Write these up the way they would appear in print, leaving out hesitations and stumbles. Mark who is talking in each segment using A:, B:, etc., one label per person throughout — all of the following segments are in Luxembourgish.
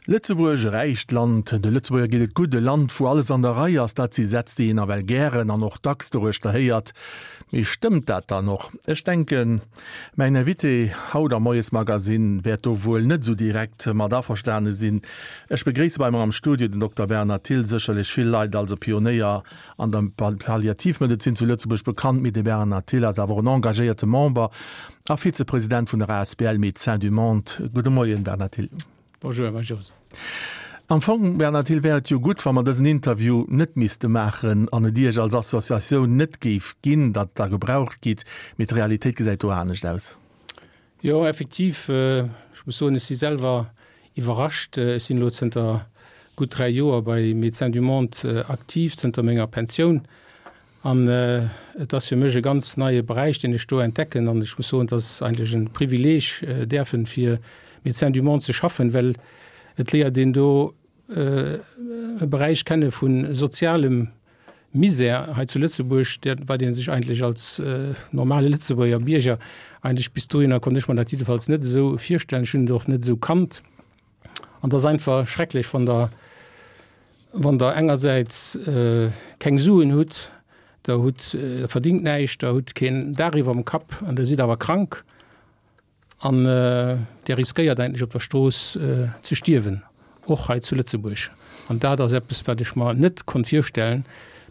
A: Lëtzebuerg, e räicht Land, de Lëtzebuerger geet et gutt, e Land wou alles an der Rei ass, dat si Sätz déi een nawell gären an och dacks doruechter héiert. Mee stëmmt dat dann och? Ech denken, mäin Invité haut am Moiesmagazine wäert do wuel net esou direkt mat averstane sinn. Ech begréisse bei mer am Studio den Dokter Bernhard Thill, sécherlech vill Leit als e Pionéier an der Palliativmedezin zu Lëtzebuerg bekannt, mee de Bernhard Thill ass awer och en engagéierte Member a Vizepresident vun der asbl Médecins du Monde. Gudde Moien, Bernhard Thill.
B: Bonjour, Här Jos.
A: Am Fong, Bernhard Thill, wär et jo gutt, wa mer dësen Interview net misste maachen an et Iech als Associatioun net géif ginn, datt Der gebraucht gitt, mee d'Realitéit gesäit do anescht aus.
B: Jo, effektiv, ech muss soen, ech si selwer iwwerrascht. Ech sinn elo zënter gutt 3 Joer bei Médecins du Monde aktiv, zënter menger Pensioun. An et ass fir mech e ganz neie Beräich, deen ech do entdecken. An ech muss soen, et ass eigentlech e Privileeg, däerfen fir Médecins du Monde ze schaffen, well et léiert een do e Beräich kenne vu sozialem Misär hei zu Lëtzebuerg, wat ee sech eigentlech als normale Lëtzebuerger Bierger eigentlech bis dohinner konnt ech mer dat jiddefalls net esou virstellen. Ech hunn et och net esou kannt. An et ass einfach schrecklech, wann Der Wann Der engersäits keng Suen hutt, Der hutt, Der verdingt näischt, Der hutt keen Daach iwwerm Kapp an Der sidd awer krank an Der riskéiert eigentlech op der Strooss ze stierwen, och hei zu Lëtzebuerg. An dat ass eppes, wat ech mer net konnt virstellen,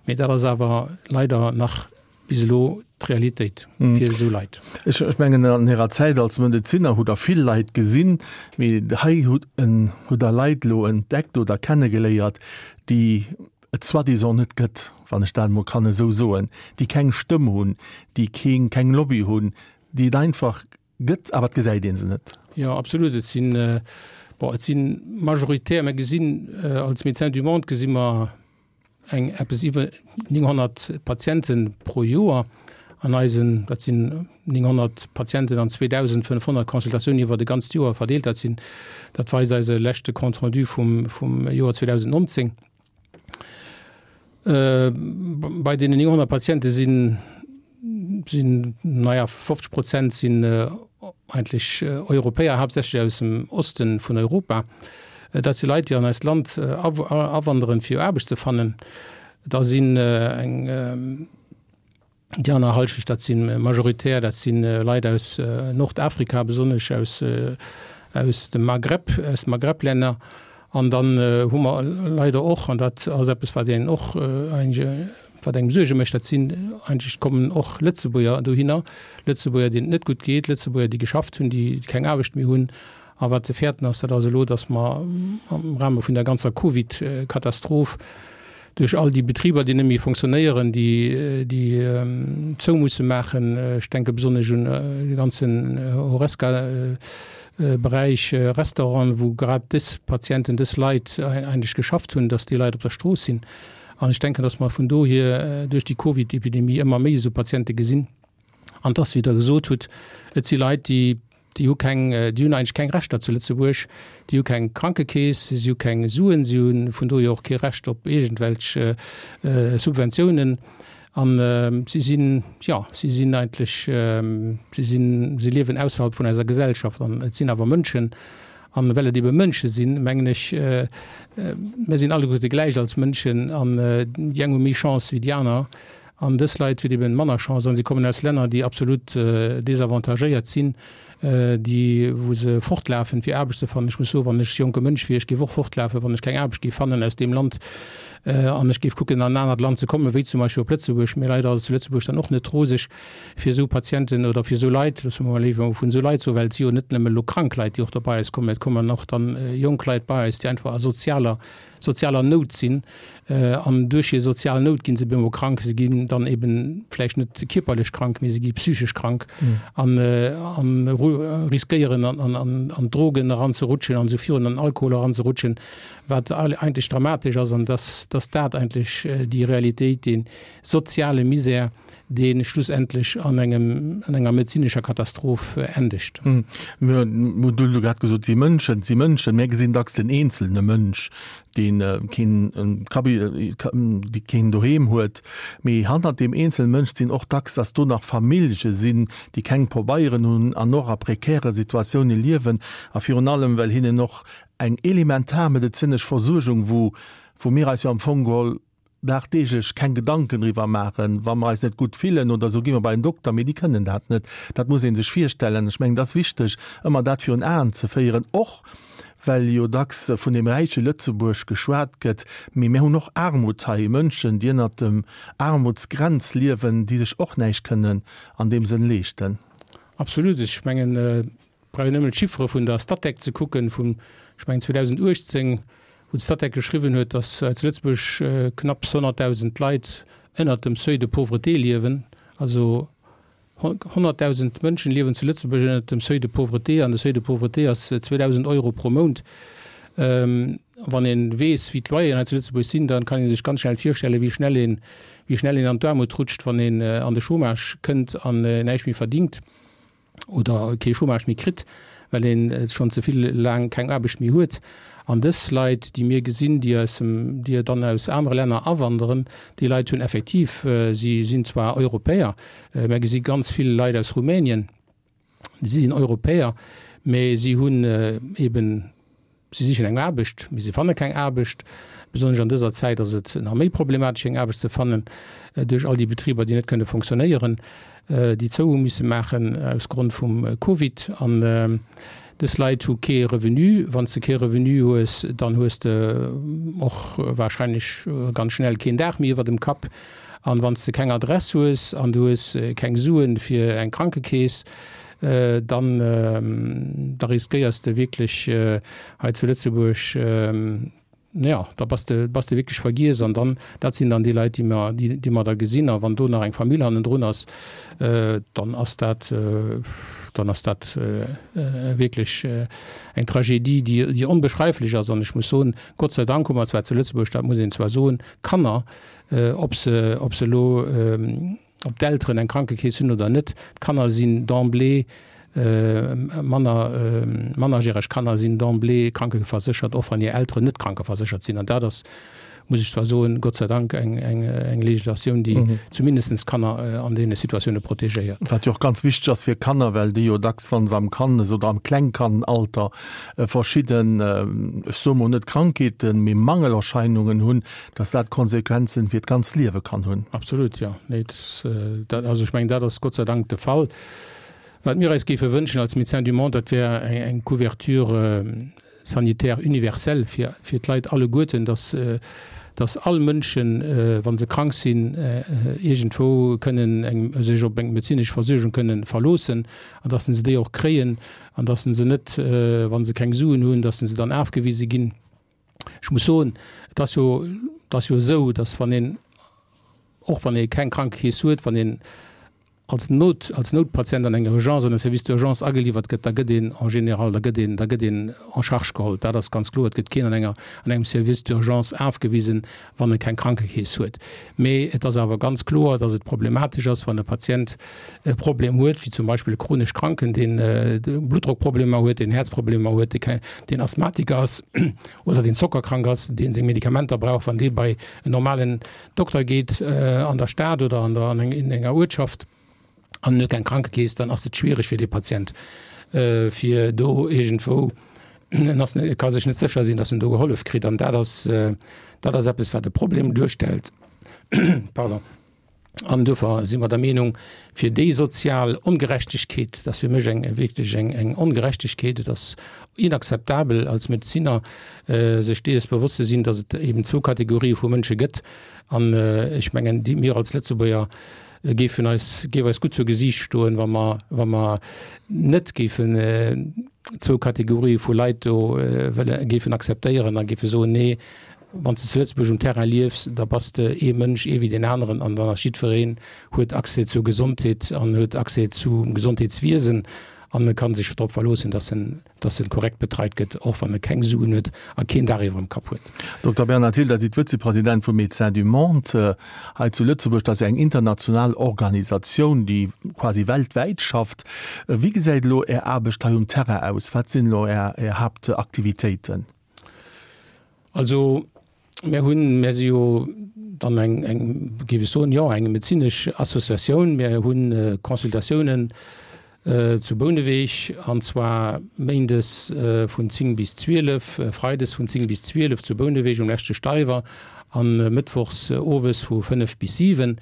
B: mee dat ass awer leider nach bis elo d'Realitéit fir esou Leit.
A: Ech mengen, an Ärer Zäit als Medezinner hutt Der vill Leit gesinn, mee hei hutt Der Leit elo entdeckt oder kennegeléiert, déi et soi-disant net gëtt, wann ech dat emol kann esou soen, déi keng Stëmm hunn, déi keng Lobby hunn, déi et einfach gëtt, awer et gesäit ee se net.
B: Jo, absolut. Et sinn, bon, et si majoritär, mir gesinn als Médecins du Monde gesi mer, eng eppes iwwer 900 Patiente pro Joer an eisen, dat sinn 900 Patienten an 2.500 Consultatiounen iwwer e ganzt Joer verdeelt. Dat sinn, dat weist eise leschte Compte rendu vum, vum Joer 2019. Bei deenen 900 Patiente sinn, sinn, naja, 50 Prozent sinn eigentlech Europäer, haaptsächlech aus dem Oste vun Europa. Dat si Leit, déi an eist Land awanderen, fir Aarbecht ze fannen. Da sinn eng déi aner Hallschecht, dat si majoritär, dat si Leit aus Nordafrika, besonnesch aus aus dem Maghreb, aus de Maghreb-Länner. An dann hu mer leider och, an dat ass eppes, wat een och wat engem Suerge mécht, dat sinn eigentlech kommen och Lëtzebuerger dohinner, Lëtzebuerger, deenen et net gutt geet, Lëtzebuerger, déi geschafft hunn, déi keng Aarbecht méi hunn. A wat ze fäerten ass, dat ass elo, datt mer am Rahme vun der ganzer Covid-Katastroph duerch all déi Betriber, déi net méi fonctionnéieren, déi, déi zou musse maachen, ech denke besonnesch un de ganzen Horesca-Beräich, Restauranten, wou grad dës Patienten, dës Leit eigentlech geschafft hunn, datt déi Leit op der Strooss sinn. An ech denken, datt mer vun dohier duerch déi Covid-Epidemie ëmmer méi esou Patiente gesinn. An dass, wéi Der gesot hutt, et si Leit, déi, déi hu keng, déi hunn eigentlech keng Rechter zu Lëtzebuerg, déi hu keng Krankekeess, si hu keng Suen, si hu vun dohier och kee Recht op iergendwelch Subventiounen. An si sinn, jo, si sinn eigentlech, si sinn, si liewen ausserhalb vun eiser Gesellschaft. An et sinn awer Mënschen. An well et ebe Mënsche sinn, mengen ech, mir sinn alleguerte gläich als Mënschen an déi eng hu méi Chance wéi déi aner. An dës Leit hunn eben manner Chance an si kommen aus Länner, déi absolut desavantagéiert sinn, déi, wou se fortlafen, fir Aarbecht ze fannen. Ech muss soen, wann ech jonke Mënsch wier, ech géif och fortlafen, wann ech keng Aarbecht géif fannen aus deem Land an ech géif kucken, an en anert Land ze kommen, wéi zum Beispill op Lëtzebuerg. Mee leider ass et zu Lëtzebuerg dann och net roseg fir esou Patienten oder fir esou Leit, loosse mer mol léiwer vun esou Leit soen, well et si jo net nëmme elo krank Leit, déi och da bei eis kommen, et kommen och dann jonk Leit bei eis, déi einfach a sozialer sozialer Nout sinn an duerch hir sozial Nout ginn se bemol krank. Se ginn dann eben vläicht net kierperlech krank, mee se gi psychesch krank an an riskéieren an an an d'Drogen eranzerutschen an esou virun, an Alkohol eranzerutschen, wat eigentlech dramatesch ass an dass dass dat eigentlech déi Realitéit, dee soziale Misär, dee schlussendlech an engem, an enger medezinescher Katastroph endegt.
A: Mir hunn elo grad gesot, si Mënschen, si Mënschen. Mir gesinn dacks den eenzelne Mënsch, dee keen Kabi, dee keen Doheem huet. Mee hannert deem eenzelne Mënsch sinn och dacks, dass do nach Famillje sinn, déi keng Pobeieren hunn an och a prekäre Situatioune liewen a virun allem, well hinnen och. Eng elementar medezinesch Versuergung, wou, wou mir eis jo am Fong geholl dagdeeglech keng Gedanken driwwer maachen, wa mer eis net gutt fillen oder esou, gi mer bei en Dokter, mee déi kënnen dat net. Dat muss ee sech virstellen. Ech mengen, et ass wichteg, ëmmer dat virun Aen ze féieren, och well jo dacks vun deem räiche Lëtzebuerg geschwat gëtt, mee mir hunn och Aarmut hei, Mënschen, déi ënnert dem Aarmutsgrenz liewen, déi sech och näischt kënnen an deem Sënn leeschten.
B: Absolut. Ech mengen, et brauch een nëmmen d'Chiffere vun der Statec ze kucken, vun, ech mengen, 2018, wou d'Statec geschriwwen huet, datt hei zu Lëtzebuerg knapps 100.000 Leit ënnert dem Seuil de pauvreté liewen. Also 100.000 Mënschen liewen zu Lëtzebuerg ënnert dem Seuil de pauvreté, an de Seuil de pauvreté ass 2.000 Euro pro Mount. Wann ee weess, wéi d'Loyeren hei zu Lëtzebuerg sinn, da kann ee sech ganz schnell virstellen, wéi schnell een, wéi schnell een an d'Aarmut rutscht, wann een an de Chômage kënnt an näischt méi verdingt. oder kee Chômage méi kritt, well een schonn ze vill laang keng Aarbecht méi huet. An dës Leit, déi mir gesinn, déi aus dem, déi dann aus anere Länner awanderen, déi Leit hunn effektiv, si sinn zwar Europäer, mer gesi ganz vill Leit aus Rumänien, si sinn Europäer, mä si hunn eben Si sichen eng Aarbecht, mee si fanne keng Aarbecht. Besonnesch an dëser Zäit ass et nach méi problematesch, eng Aarbecht ze fannen, duerch all déi Betriber, déi net kënne fonctionnéieren, déi zou hu misse maachen aus Grond vum Covid. An dës Leit hu kee Revenu. Wann s de kee Revenu hues, dann hues de och warscheinlech ganz schnell keen Daach méi iwwer dem Kapp. An wann s de keng Adress hues an du hues keng Suen fir eng Krankekeess, dann da riskéiers de wierklech hei zu Lëtzebuerg, jo, da bass de bass de wierklech vergiess. An dann, dat sinn dann déi Leit, déi mer déi mer da gesinn. A wann do nach eng Famill hannendrun ass, dann ass dat dann ass dat wierklech eng Tragedie, déi déi onbeschreiflech ass. An ech muss soen, Gott sei Dank hu mer zwar zu Lëtzebuerg, dat muss een zwar soen, Kanner, ob se ob se elo ob d'Elteren eng Krankekeess hunn oder net, d'Kanner sinn d'emblée manner mannerjäreg Kanner sinn d'emblée krankeverséchert, och wann hir Elteren net krankeverséchert sinn. An dat ass, muss ech zwar soen, Gott sei Dank eng eng eng Legislatioun, déi zumindest d'Kanner an deene Situatioune protegéiert.
A: Wat jo och ganz wichteg ass fir Kanner, well déi jo dacks, wa se am Kannes oder am Klengkannalter verschidden, ech soe mol net Krankheeten, mee Mangelerscheinungen hunn, dass dat Konsequenzen fir d'ganz Liewe kann hunn.
B: Absolut, jo. Nee, dat, also ech mengen, dat ass Gott sei Dank de Fall. Wat mir eis géife wënschen als Médecins du Monde, dat wär eng Couverture sanitaire universelle fir, fir d'Leit alleguerten, dass, dass all Mënschen, wa se krank sinn, iergendwou kënnen eng, sech op eng medezinesch Versuergung kënnen verloossen an dass se déi och kréien an dass se net, wa se keng Suen hunn, dass se dann afgewise ginn. Ech muss soen, et ass jo, et ass jo esou, datt wann een, och wann ee keng Krankekeess huet, wann een als Not, als Noutpatient an eng Urgence, an e Service d'urgence ageliwwert gëtt, da gëtt een en général, da gëtt een, da gëtt een en charge geholl. Dat ass ganz kloer. Et gëtt keen an enger, an engem Service d'urgence afgewisen, wann e keng Krankekeess huet. Mee et ass awer ganz kloer, datt et problematesch ass, wann e Patient e Problem huet, wéi zum Beispill e chronesch Kranken, deen Bluttdrockproblemer huet, deen Häerzproblemer huet, deen Asthmatiker ass oder deen zockerkrank ass, dee seng Medikamenter brauch, wann dee bei en normalen Dokter geet an der Stad oder an der, an enger Uertschaft an en huet keng Krankekeess, dann ass et schwiereg fir dee Patient, fir do iergendwou, en ass, e ka sech net sécher sinn, datt en do gehollef kritt. An dat ass, dat ass eppes, wat e Problem duerstellt. Pardon. An duerfir si mer der Meenung, fir déi sozial Ongerechtegkeet, dat ass fir mech eng wierklech eng eng Ongerechtegkeet, et ass inakzeptabel als Medezinner, sech dees bewosst ze sinn, datt et eben zwou Kategorië vu Mënsche gëtt. An ech mengen, déi mir als Lëtzebuerger géifen eis, géif eis gutt zu Gesiicht stoen, wa mer, wa mer net géifen zwou Kategorië vu Leit do wëlle géifen akzeptéieren a géife soen, nee, Wann s de zu Lëtzebuerg um Terrain liefs, da bass de ee Mënsch, ee wéi deen aneren an dann ass jiddwereen huet Accès zur Gesondheet an huet Accès zum Gesondheetswiesen an e ka sech drop verloossen, dass en, dass en korrekt betreit gëtt, och wann e keng Suen huet a keen Daach iwwerem Kapp huet.
A: Dokter Bernhard Thill, Der sidd Vëzepresident vu Médecins du Monde hei zu Lëtzebuerg. Dat ass jo eng international Organisatioun, déi quasi weltwäit schafft. Wéi gesäit elo Är Aarbecht hei um Terrain aus? Wat sinn elo Är Haaptaktivitéiten?
B: Also mir hunn, mir si jo dann eng, eng, géif ech soen, jo, eng medezinesch Associatioun. Mir hu Consultatiounen. Zu Bouneweg, an zwar méindes vun 10 bis 12, freides vun 10 bis 12 zu Bouneweg um leschte Steiwer an mëttwochs owes vu 5 bis 7.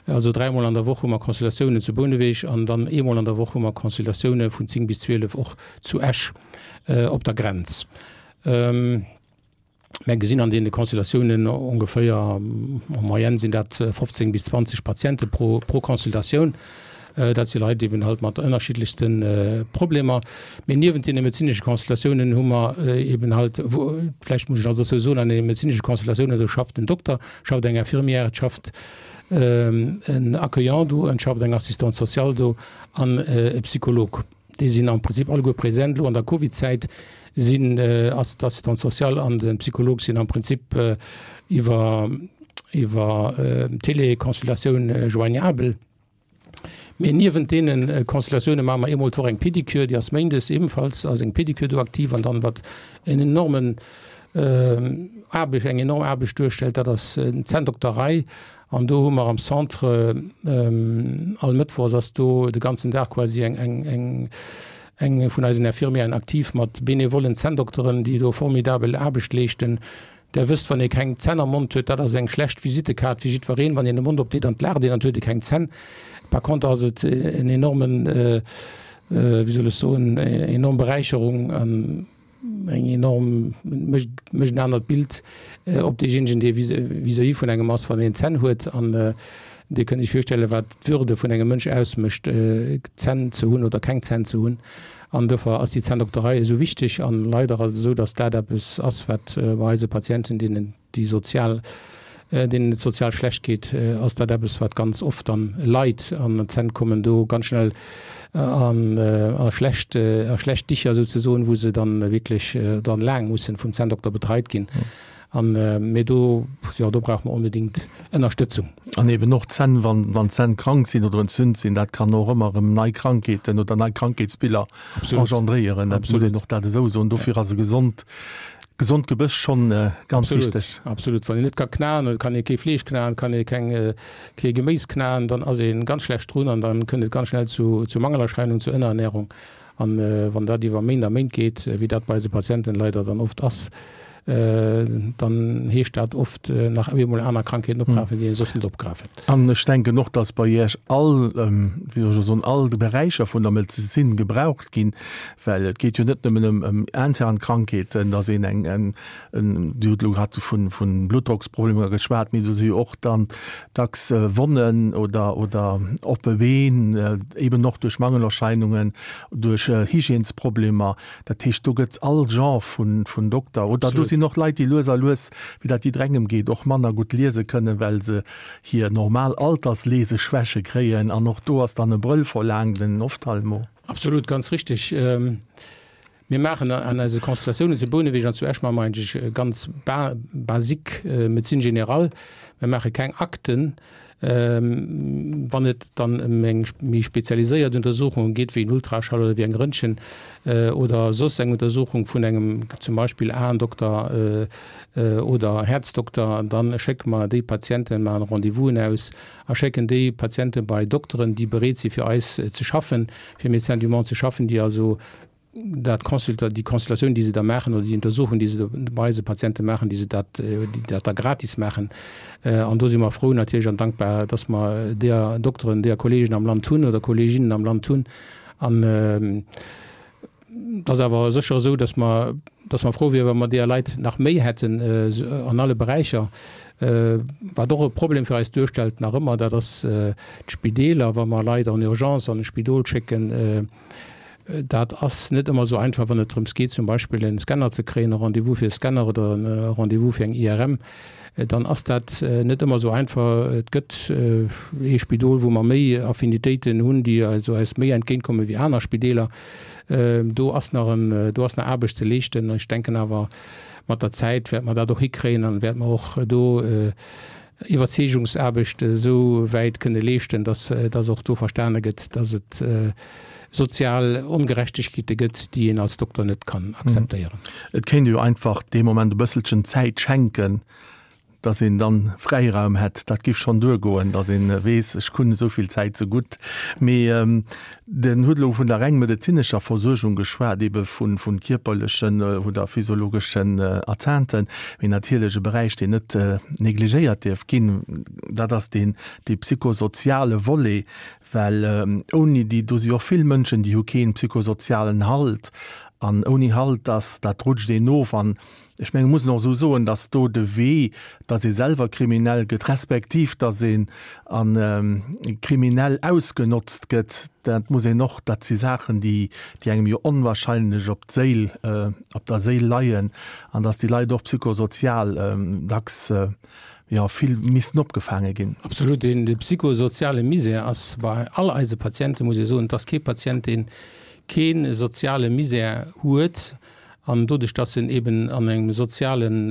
B: Also dräimol an der Woch hu mer Consultatiounen zu Bouneweg an dann eemol an der Woch hu mer Consultatioune vun 10 bis 12 och zu Esch op der Grenz. Mär gesinn an deene Consultatiounen ongeféier, en moyenne sinn dat 15 bis 20 Patiente pro Consultatioun. Dat si Leit eben halt mat ënnerschiddlechste Problemer. Mee niewent deene medezinesche Consultatiounen hu mer eben halt, vläicht muss ech nach dozou soen, an deene medezinesche Consultatiounen, do schafft en Dokter, schafft eng Infirmière, et schafft en Accueillant do, et schafft eng Assistante sociale do an e Psycholog. Déi sinn am Prinzip alleguer present. Elo an der Covid-Zäit sinn, ass d'Assistante sociale an de Psycholog sinn am Prinzip iwwer, iwwer Teleconsultatioun joignabel. Mee niewent deene Consultatioune maache mer eemol d'Woch eng Pédicure, déi ass méindes ebenfalls ass eng Pédicure do aktiv. An dann, wat en enormen Aarbecht, eng enorm Aarbecht duerstellt, dat ass d'Zänndokterei. An do hu mer am Centre all Mëttwochs ass do de ganzen Dag quasi eng, eng, eng, eng vun eisen Infirmièren aktiv mat benevollen Zänndokteren, déi do formidabel Aarbecht leeschten. Der wësst, wann ee keng Zänn am Mond huet, dat ass eng schlecht Visittekaart fir jiddwereen. Wann een de Mond opdeet an et laacht een, dann huet e keng Zänn. Par contre ass et en enormen, wéi soll ech soen, enorm Beräicherung an, eng enorm, mécht mécht en anert Bild op deejéinegen, dee vis-à-vis vun engem ass, wann een Zänn huet. An Dir kënnt Iech virstellen, wat d'Würde vun engem Mënsch ausmécht, Zänn ze hunn oder keng Zänn ze hunn. An dofir ass déi Zänndokterei esou wichteg. An leider ass et esou, datt dat eppes ass, wat bei eise Patienten, deenen déi sozial, deenen et sozial schlecht geet, ass dat eppes, wat ganz oft dann leit an d'Zänn kommen do ganz schnell an a schlecht, a schlecht Dicher souzesoen, wou se dann wierklech dann laang mussen vum Zänndokter betreit ginn. An, mee do, jo, do brauche mer onbedéngt Ënnerstëtzung.
A: An eben och d'Zänn, wann, wann d'Zänn krank sinn oder entzünt sinn, dat kann och ëmmer erëm nei Krankheeten oder nei Krankheetsbiller engendréieren. Dat muss een och dat esou soen. Dofir ass e gesond, Gesond Gebëss schonn ganz wichteg.
B: Absolut. Wann een net ka knaen, oder kann ee kee Fleesch knaen, kann ee keng, kee Geméis knaen, dann ass ee ganz schlecht drun an dann kënnt et ganz schnell zu, zu Mangelerscheinungen, zu Ënnerernährung. An wann dat iwwer Méint a Méint geet, wéi dat bei eise Patienten leider dann oft ass, dann heescht dat oft nach eemol aner Krankheeten opgrafen, déi ee soss net opgrafen.
A: An ech denken och, dass bei Iech all, wéi soll ech elo soen, all Beräicher vun der Medezin gebraucht ginn, Well et geet jo net nëmmen ëm ëm intern Krankheeten, datt een eng eng en, Dir hutt elo grad vu vu Bluttdrocksproblemer geschwat, mee do si jo och dann dacks Wonnen oder oder oppe Been, eben och duerch Mangelerscheinungen, duerch Hygiènesproblemer. Dat heescht, do gëtt all Genre vun vun Dokter oder do sinn och Leit, déi lues a lues, wéi dat jidderengem geet, och manner gutt liese kënnen, well se hir normal Altersleseschwäche kréien. An och do ass dann e Brëll verlaangt, en Ophtalmo.
B: Absolut, ganz richtig. Mir maachen an eise Consultatiounen zu Bouneweg an zu Esch maache mer eigentlech ganz basique Médecine générale. Mir maache keng Akten. Wann et dann ëm eng méi spezialiséiert Untersuchung geet, wéi en Ultraschall oder wéi eng Röntgen oder soss eng Untersuchung vun engem zum Beispill Aendokter oder Häerzdokter, dann schécke mer déi Patienten, maachen Rendez-vousen aus a schécken déi Patiente bei Dokteren, déi bereet si fir eis ze schaffen, fir Médecins du Monde ze schaffen, déi also dat Consulta, déi Consultatioun, déi se da maachen oder déi Untersuchung, déi se do bei eise Patiente maachen, déi se dat, déi dat da gratis maachen. An do si mer frou natierlech an dankbar, dass mer deeër Dokteren, deeër Kolleegen am Land hunn oder Kolleeginnen am Land hunn. An Et ass awer sécher esou, dass mer, dass mer frou wieren, wa mer deeër Leit nach méi hätten an alle Beräicher. Wat och e Problem fir eis duerstellt nach ëmmer, dat ass d'Spideeler, wa mer Leit en urgence an e Spidol schécken. Dat ass net ëmmer esou einfach, wann et drëms geet, zum Beispill e Scanner ze kréien, e Rendez-vous fir e Scanner oder e Rendez-vous fir eng IRM. Dann ass dat net ëmmer esou einfach. Et gëtt ee Spidol, wou mer méi Affinitéiten hunn, déi also eis méi entgéintkomme wéi aner Spideeler. Do ass nach en, do ass nach Aarbecht ze leeschten. Ech denken awer, mat der Zäit wäerte mer dat och hikréien an wäerte mer och do Iwwerzeegungsaarbecht esou wäit kënne leeschten, dass, dass och do verstane gëtt, dass et sozial Ongerechtegkeete gëtt, déi een als Dokter net kann akzeptéieren.
A: Et kéint ee jo einfach dee Moment e bësselchen Zäit schenken. Dass een dann Fräiraum hätt, dat giff schonn duergoen, dass een weess, ech hunn esou vill Zäit ze gutt. Mee den huet elo vun der reng medezinescher Versuergung geschwat, ebe vu vu kierperlechen oder physiologeschen Atteinten. Mee natierlech e Beräich, deen net negligéiert dierf ginn, dat ass deen dee psychosoziale Volet, well ouni déi, do si och vill Mënschen, déi hu keen psychosozialen Halt an ouni Halt, dass dat rutscht een of an Ech mengen, muss een och esou soen, datt do de Wee, datt ee selwer kriminell gëtt, respektiv datt een a kriminell ausgenotzt gëtt, dat muss een och, dat si Saachen, déi, déi engem jo onwahrscheinlech op d'Séil, op der Séil leien, an datt déi Leit och psychosozial dacks, jo, vill missten opgefaange ginn.
B: Absolut. Deen, de psychosoziale Misär ass bei all eise Patienten, muss ee soen, et ass kee Patient, deen kee soziale Misär huet, An doduerch, dass en eben an engem sozialen,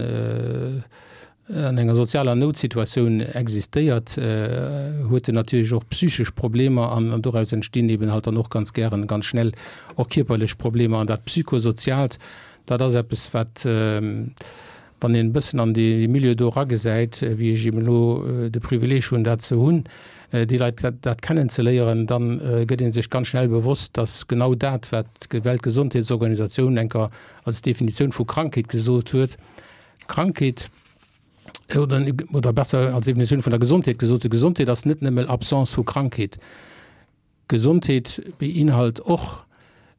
B: an enger sozialer Noutsituatioun existéiert, huet en natierlech och psychesch Problemer an doraus entstinn eben halt dann och ganz gären ganz schnell och kierperlech Problemer. An dat Psychosoziaalt, dat ass eppes, wat, wann een e bëssen an dee Milieu do eragesäit, wéi ech eben elo de Privileeg hunn, dat ze hunn, déi Leit dat kennenzeléieren, da gëtt ee sech ganz schnell bewosst, dass genau dat, wat d'Weltgesondheetsorganisatioun enker als Definitioun vu Krankheet gesot huet, Krankheet, oder, oder besser als Definitioun vun der Gesondheet gesot huet, Gesondheet ass net nëmme Absence vu Krankheet. Gesondheet beinhalt och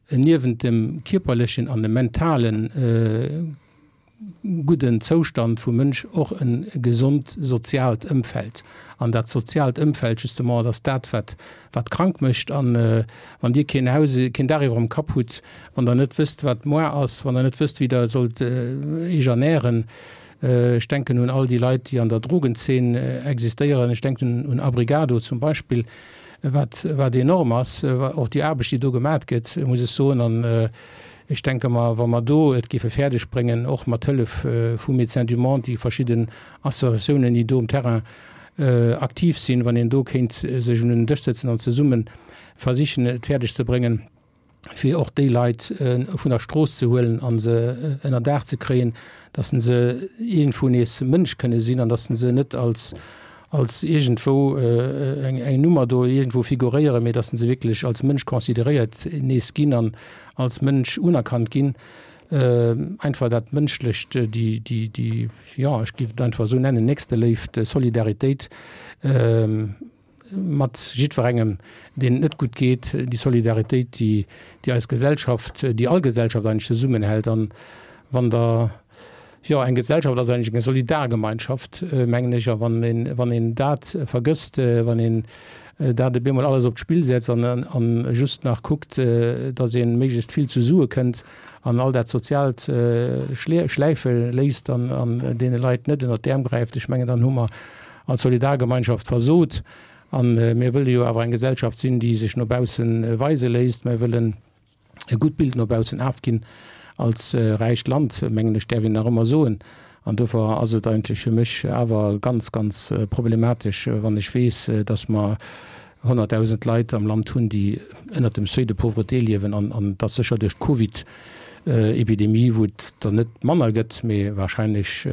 B: niewent dem kierperlechen an dem mentalen gudden Zoustand vum Mënsch och e gesond soziaalt Ëmfeld. An dat soziaalt Ëmfeld justement, dat ass dat, wat wat krank mécht. An wann Dir keen Haus, keen Daach iwwer dem Kapp hutt, wann Der net wësst, wat moar ass, wann Der net wësst, wéi Der sollt Iech ernähren, ech denken un all déi Leit, déi an der Drogenzeen existéieren, ech denken un Abrigado zum Beispill, wat wat enorm ass, och déi Aarbecht, déi do gemat gëtt, muss ech soen. An ech denke mer, wa mer do et géife fäerdeg bréngen, och mat Hëllef vu Médecins du Monde, déi verschidden Associatiounen, déi do um Terrain aktiv sinn, wann een do kéint sech un en Dësch sëtzen an zesumme versichen, et fäerdeg ze bréngen, fir och déi Leit vun der Strooss ze huelen a se ënner Daach ze kréien, datt se iergendwou nees Mënsch kënne sinn an datt se net als, als iergendwou eng, eng Nummer do iergendwou figuréieren, mee datt se wierklech als Mënsch consideréiert nees ginn an als Mënsch unerkannt ginn. Einfach dat Mënschlecht, déi, déi, déi, jo, ech géif et einfach esou nennen, Nächsteléift, Solidaritéit. Mat jiddwerengem, deem et net gutt geet, déi Solidaritéit, déi, déi eis Gesellschaft, déi all Gesellschaft eigentlech zesummenhält. An wann Der, jo, eng Gesellschaft ass eigentlech eng Solidargemeinschaft, mengen ech, a wann een, wann een dat vergësst, wann een dat op eemol alles op d'Spill setzt an, an just nach kuckt, datt ee méiglechst vill zu Sue kënnt an all dat Soziaalt schläife léisst an, an deene Leit net ënnert d'Äerm gräift, ech mengen, dann hu mer als Solidargemeinschaft versot. A mir wëlle jo awer eng Gesellschaft sinn, déi sech no bausse weise léisst. Mir wëllen e gutt Bild no baussen afginn als räicht Land, mengen ech, däerf een nach ëmmer soen. An dofir ass et eigentlech fir mech awer ganz, ganz problematesch, wann ech weess, datt mer 100.000 Leit am Land hunn, déi ënnert dem Seuil de pauvreté liewen an dat sécher duerch d'Covid-Epidemie, wou et der net manner gëtt, mee wahrscheinlech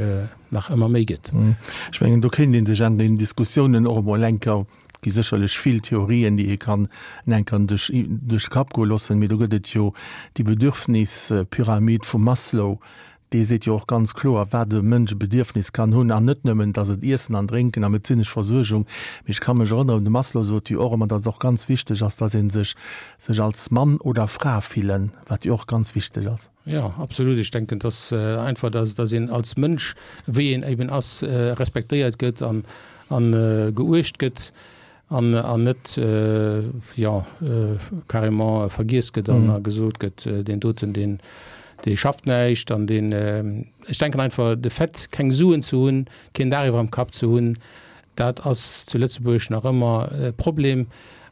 B: nach ëmmer méi gëtt.
A: Ech mengen, do kéint ee sech an den Diskussiounen och emol eng Kéier, et gi sécherlech vill Theorien, déi ee kann eng Kéier sech duerch de Kapp goe loossen, mee do gëtt et jo déi Bedürfnispyramid vum Maslow, Dee seet jo och ganz kloer, wat e Mënsch e Bedierfnis kann hunn, an net nëmmen, dass et Iessen an Drénken a medezinesch Versuergung, mee ech ka mech erënneren, de Maslow sot jo och ëmmer, dass et och ganz wichteg ass, dass ee sech sech als Mann oder Fra fillen, wat jo och ganz wichteg ass.
B: Jo, absolut. Ech denken, dass einfach, dass dass een als Mënsch, wéi een eben ass, respektéiert gëtt an an geuecht gëtt. An an net, jo, carrément vergiess gëtt an a gesot gëtt, deen doten, deen, dee schafft näischt an deen. Ech denken einfach, de Fait, keng Suen ze hunn, keen Daach iwwer am Kapp ze hunn, dat ass zu Lëtzebuerg nach ëmmer e Problem.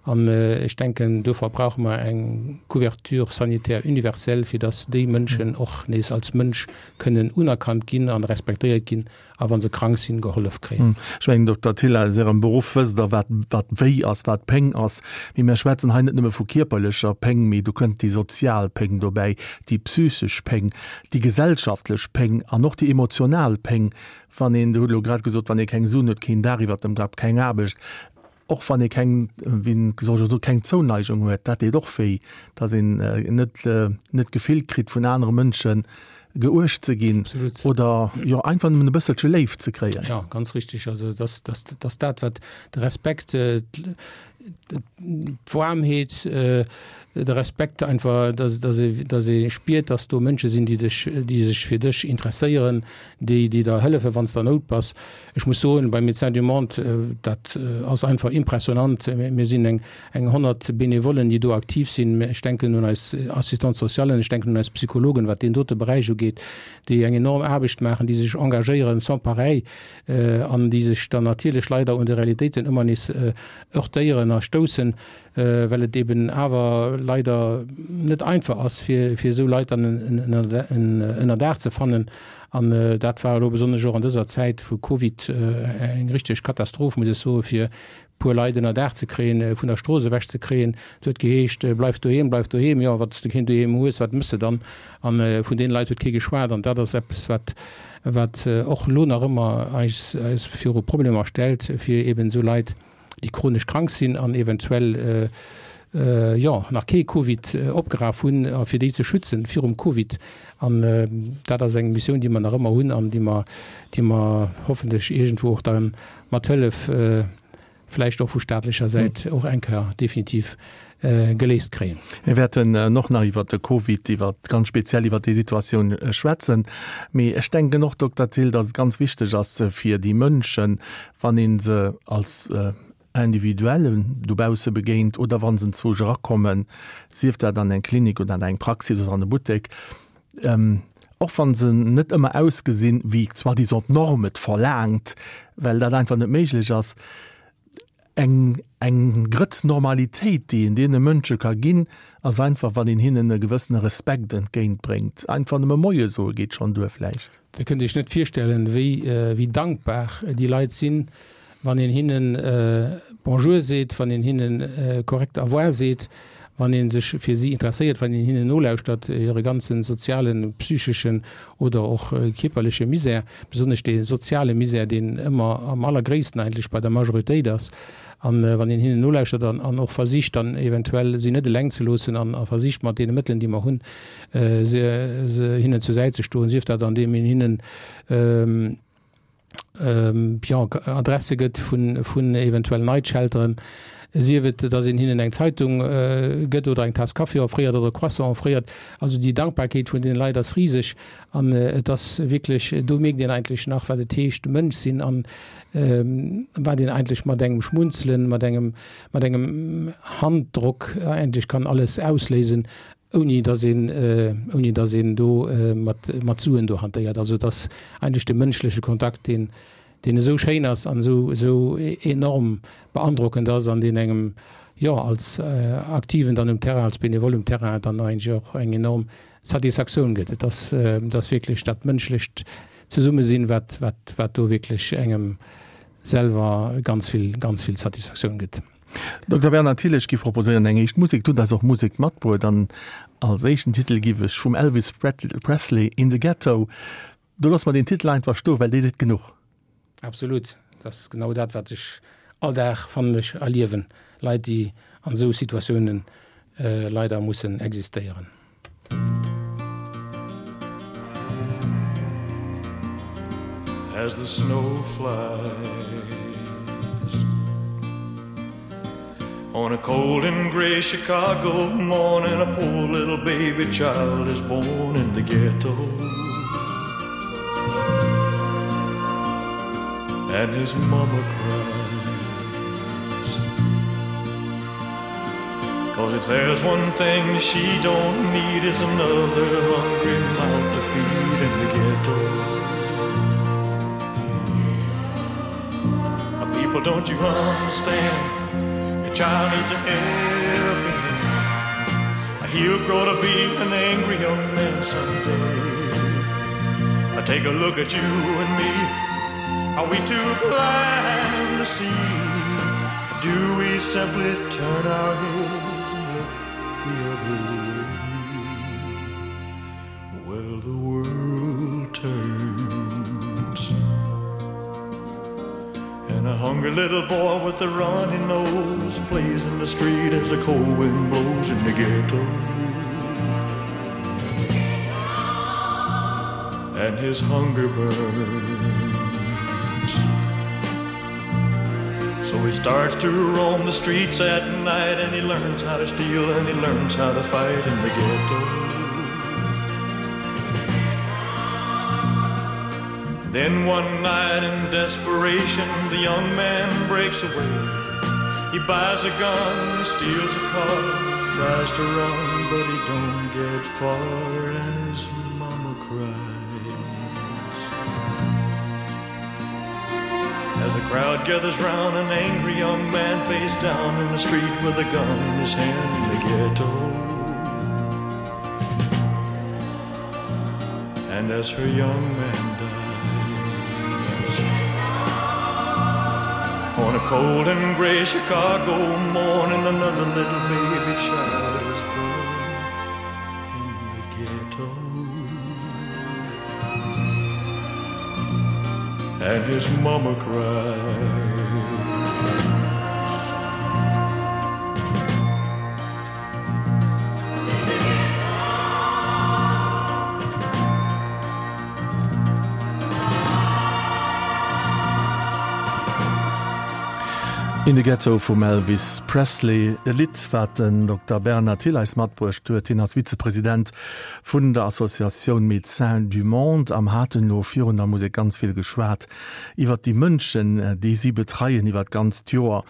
B: An ech denken, dofir brauche mer eng Couverture sanitaire universelle, fir dass déi Mënschen och nees als Mënsch kënnen unerkannt ginn an respektéiert ginn a wa se krank sinn, gehollef kréien.
A: Ech mengen, Dokter Thill, aus Ärem Beruff wësst Der, wat, wat wéi ass, wat Péng ass. Mee mir schwätzen hei net nëmme vu kierperlecher Péng, mee do kënnt déi sozial Péng dobäi, déi psychesch Péng, déi gesellschaftlech Péng an och déi emotional Péng, wann een, Dir hutt elo grad gesot, wann ee keng Suen huet, keen Daach iwwert dem Kapp, keng Aarbecht, Och wann ee keng, wéi soll ech soen, keng Zouneigung huet, dat deet och wéi, datt een net net d'Gefill kritt vun anere Mënsche geuecht ze ginn oder jo einfach nëmmen e bësselche Léift ze kréien.
B: Jo, ganz richtig. Also dass, dass, dass dat wat de Respekt, d'Waarmheet, de Respekt einfach, dass, dass ee, dass ee spiert, dass do Mënsche sinn, déi dech, déi sech fir dech interesséieren, déi, déi der hëllefen, wann s de an Nout bass. Ech muss soen, bei Médecins du Monde, dat ass einfach impressionnant. Mir sinn eng 100 Benevollen, déi do aktiv sinn. Ech denken un eis Assistante socialen, ech denken un eis Psychologen, wat deen dote Beräich ugeet, déi eng enorm Aarbecht maachen, déi sech engagéieren sans pareil an déi sech dann natierlech leider un de Realitéiten ëmmer nees heurtéieren a stoussen, well et eben awer leider net einfach ass, fir esou Leit dann en Ënnerdaach ze fannen. An dat war elo besonnesch och an dëser Zäit vu Covid eng richteg Katastroph, muss ech soen, fir e puer Leit ënnerdaach ze kréien, vun der Strooss ewech ze kréien. Et huet geheescht, Bleif doheem, bleif doheem. Jo, wann s de keen doheem hues, wat méchs de dann? A vun deene Leit huet kee geschwat. An dat ass eppes, wat, wat och elo nach ëmmer eis, eis viru Problemer stellt, fir eben esou Leit, déi chronesch krank sinn an eventuell jo nach kee Covid opgeraf hunn, a fir déi ze schützen virum Covid. An dat ass eng Missioun, déi mer nach ëmmer hunn an déi mer, déi mer hoffentlech iergendwou och dann mat Hëllef vläicht och vu staatlecher Säit och eng Kéier definitiv geléist kréien.
A: Mir wäerten och nach iwwert de Covid, iwwert ganz speziell iwwert déi Situatioun schwätzen. Mee ech denken och, Dokter Thill, datt et ganz wichteg ass fir déi Mënschen, wann ee se als Individuellen dobausse begéint oder wa se enzwousch erakommen, sief dat an eng Klinik oder an eng Praxis oder an e Buttek, och wa se net ëmmer ausgesinn, wéi soi-disant d'Norm et verlaangt, well dat einfach net méiglech ass, eng, eng Grëtz Normalitéit, déi een deene Mënsche ka ginn, ass einfach, wann een hinnen e gewëssene Respekt entgéintbréngt. Einfach nëmme Moie soe geet schonn duer vläicht.
B: Dir kënnt Iech net virstellen, wéi dankbar déi Leit sinn, wann een hinnen Bonjour seet, wann een hinnen korrekt Au revoir seet, wann ee sech fir si interesséiert, wann een hinnen nolauschtert, hire ganze sozialen, psycheschen oder och kierperleche Misär, besonnesch dee soziale Misär, deen ëmmer am allergréissten eigentlech bei der Majoritéit ass. An wann een hinnen nolauschtert an och versicht dann eventuell si net eleng ze loossen an versicht mat deene Mëttelen, déi mer hunn, se hinnen zur Säit ze stoen, sief dat andeem een hinnen jo Adresse gëtt vun vun eventuell Night Shelteren, sief et, datt een hinnen eng Zeitung gëtt oder eng Taass Kaffi offréiert oder e Croissant offréiert. Also déi Dankbarkeet vun deene Leit ass riseg an et ass wierklech, do mierkt een eigentlech nach, wat et heescht Mënsch sinn an wat een eigentlech mat engem Schmunzelen, mat engem mat engem Handdrock eigentlech kann alles ausléisen, ouni datt een, ouni datt een do mat, mat Suen do hantéiert. Also et ass eigentlech de mënschleche Kontakt, deen, deen esou schéin ass an esou, esou enorm beandrockend ass an deen engem, jo, als Aktiven dann um Terrain, als Benevole um Terrain dann eigentlech och eng enorm Satisfaktioun gëtt. Et ass, et ass wierklech dat mënschlecht Zesummesinn, wat, wat, wat do wierklech engem selwer ganz vill, ganz vill Satisfaktioun gëtt.
A: Dokter Bernard Thill, ech giff proposéieren eng éischt Musek. Du hutt eis och Musek matbruet an als éischten Titel giff ech vum Elvis Presley In the Ghetto. Do loosse mer deen Titel einfach stoen, well dee seet genuch.
B: Absolut, dat ass genau dat wat ech all Dag, fannen ech, erliewen, Leit déi an esou Situatiounen leider mussen existéieren.
C: As the snow flies On a cold and gray Chicago morning, a poor little baby child is born in the ghetto. And his mama cries. Cause if there's one thing she don't need is another hungry mouth to feed in the ghetto. People, don't you understand? child needs a helping hand. He'll grow to be an angry young man someday. I take a look at you and me. Are we too blind to see? Do we simply turn our heads and look the other way? Well, the world turns. And a hungry little boy with a runny nose plays in the street as the cold wind blows in the ghetto. And his hunger burns. So he starts to roam the streets at night and he learns how to steal and he learns how to fight in the ghetto. Then one night in desperation the young man breaks away. He buys a gun, steals a car, tries to run, but he don't get far and his mama cries. As a crowd gathers round an angry young man face down in the street with a gun in his hand in the ghetto. And as her young man dies On a cold and gray Chicago morning another little baby child is born in the ghetto. And his mama cried.
A: In the Ghetto vum Elvis Presley, e Lidd, wat den Dokter Bernard Thill eis matbruecht huet. Hien ass Vizepresident vun der Associatioun Médecins du Monde am haten elo virun der Musek ganz vill geschwat iwwert déi Mënschen, déi si betreien iwwert d'ganzt Joer.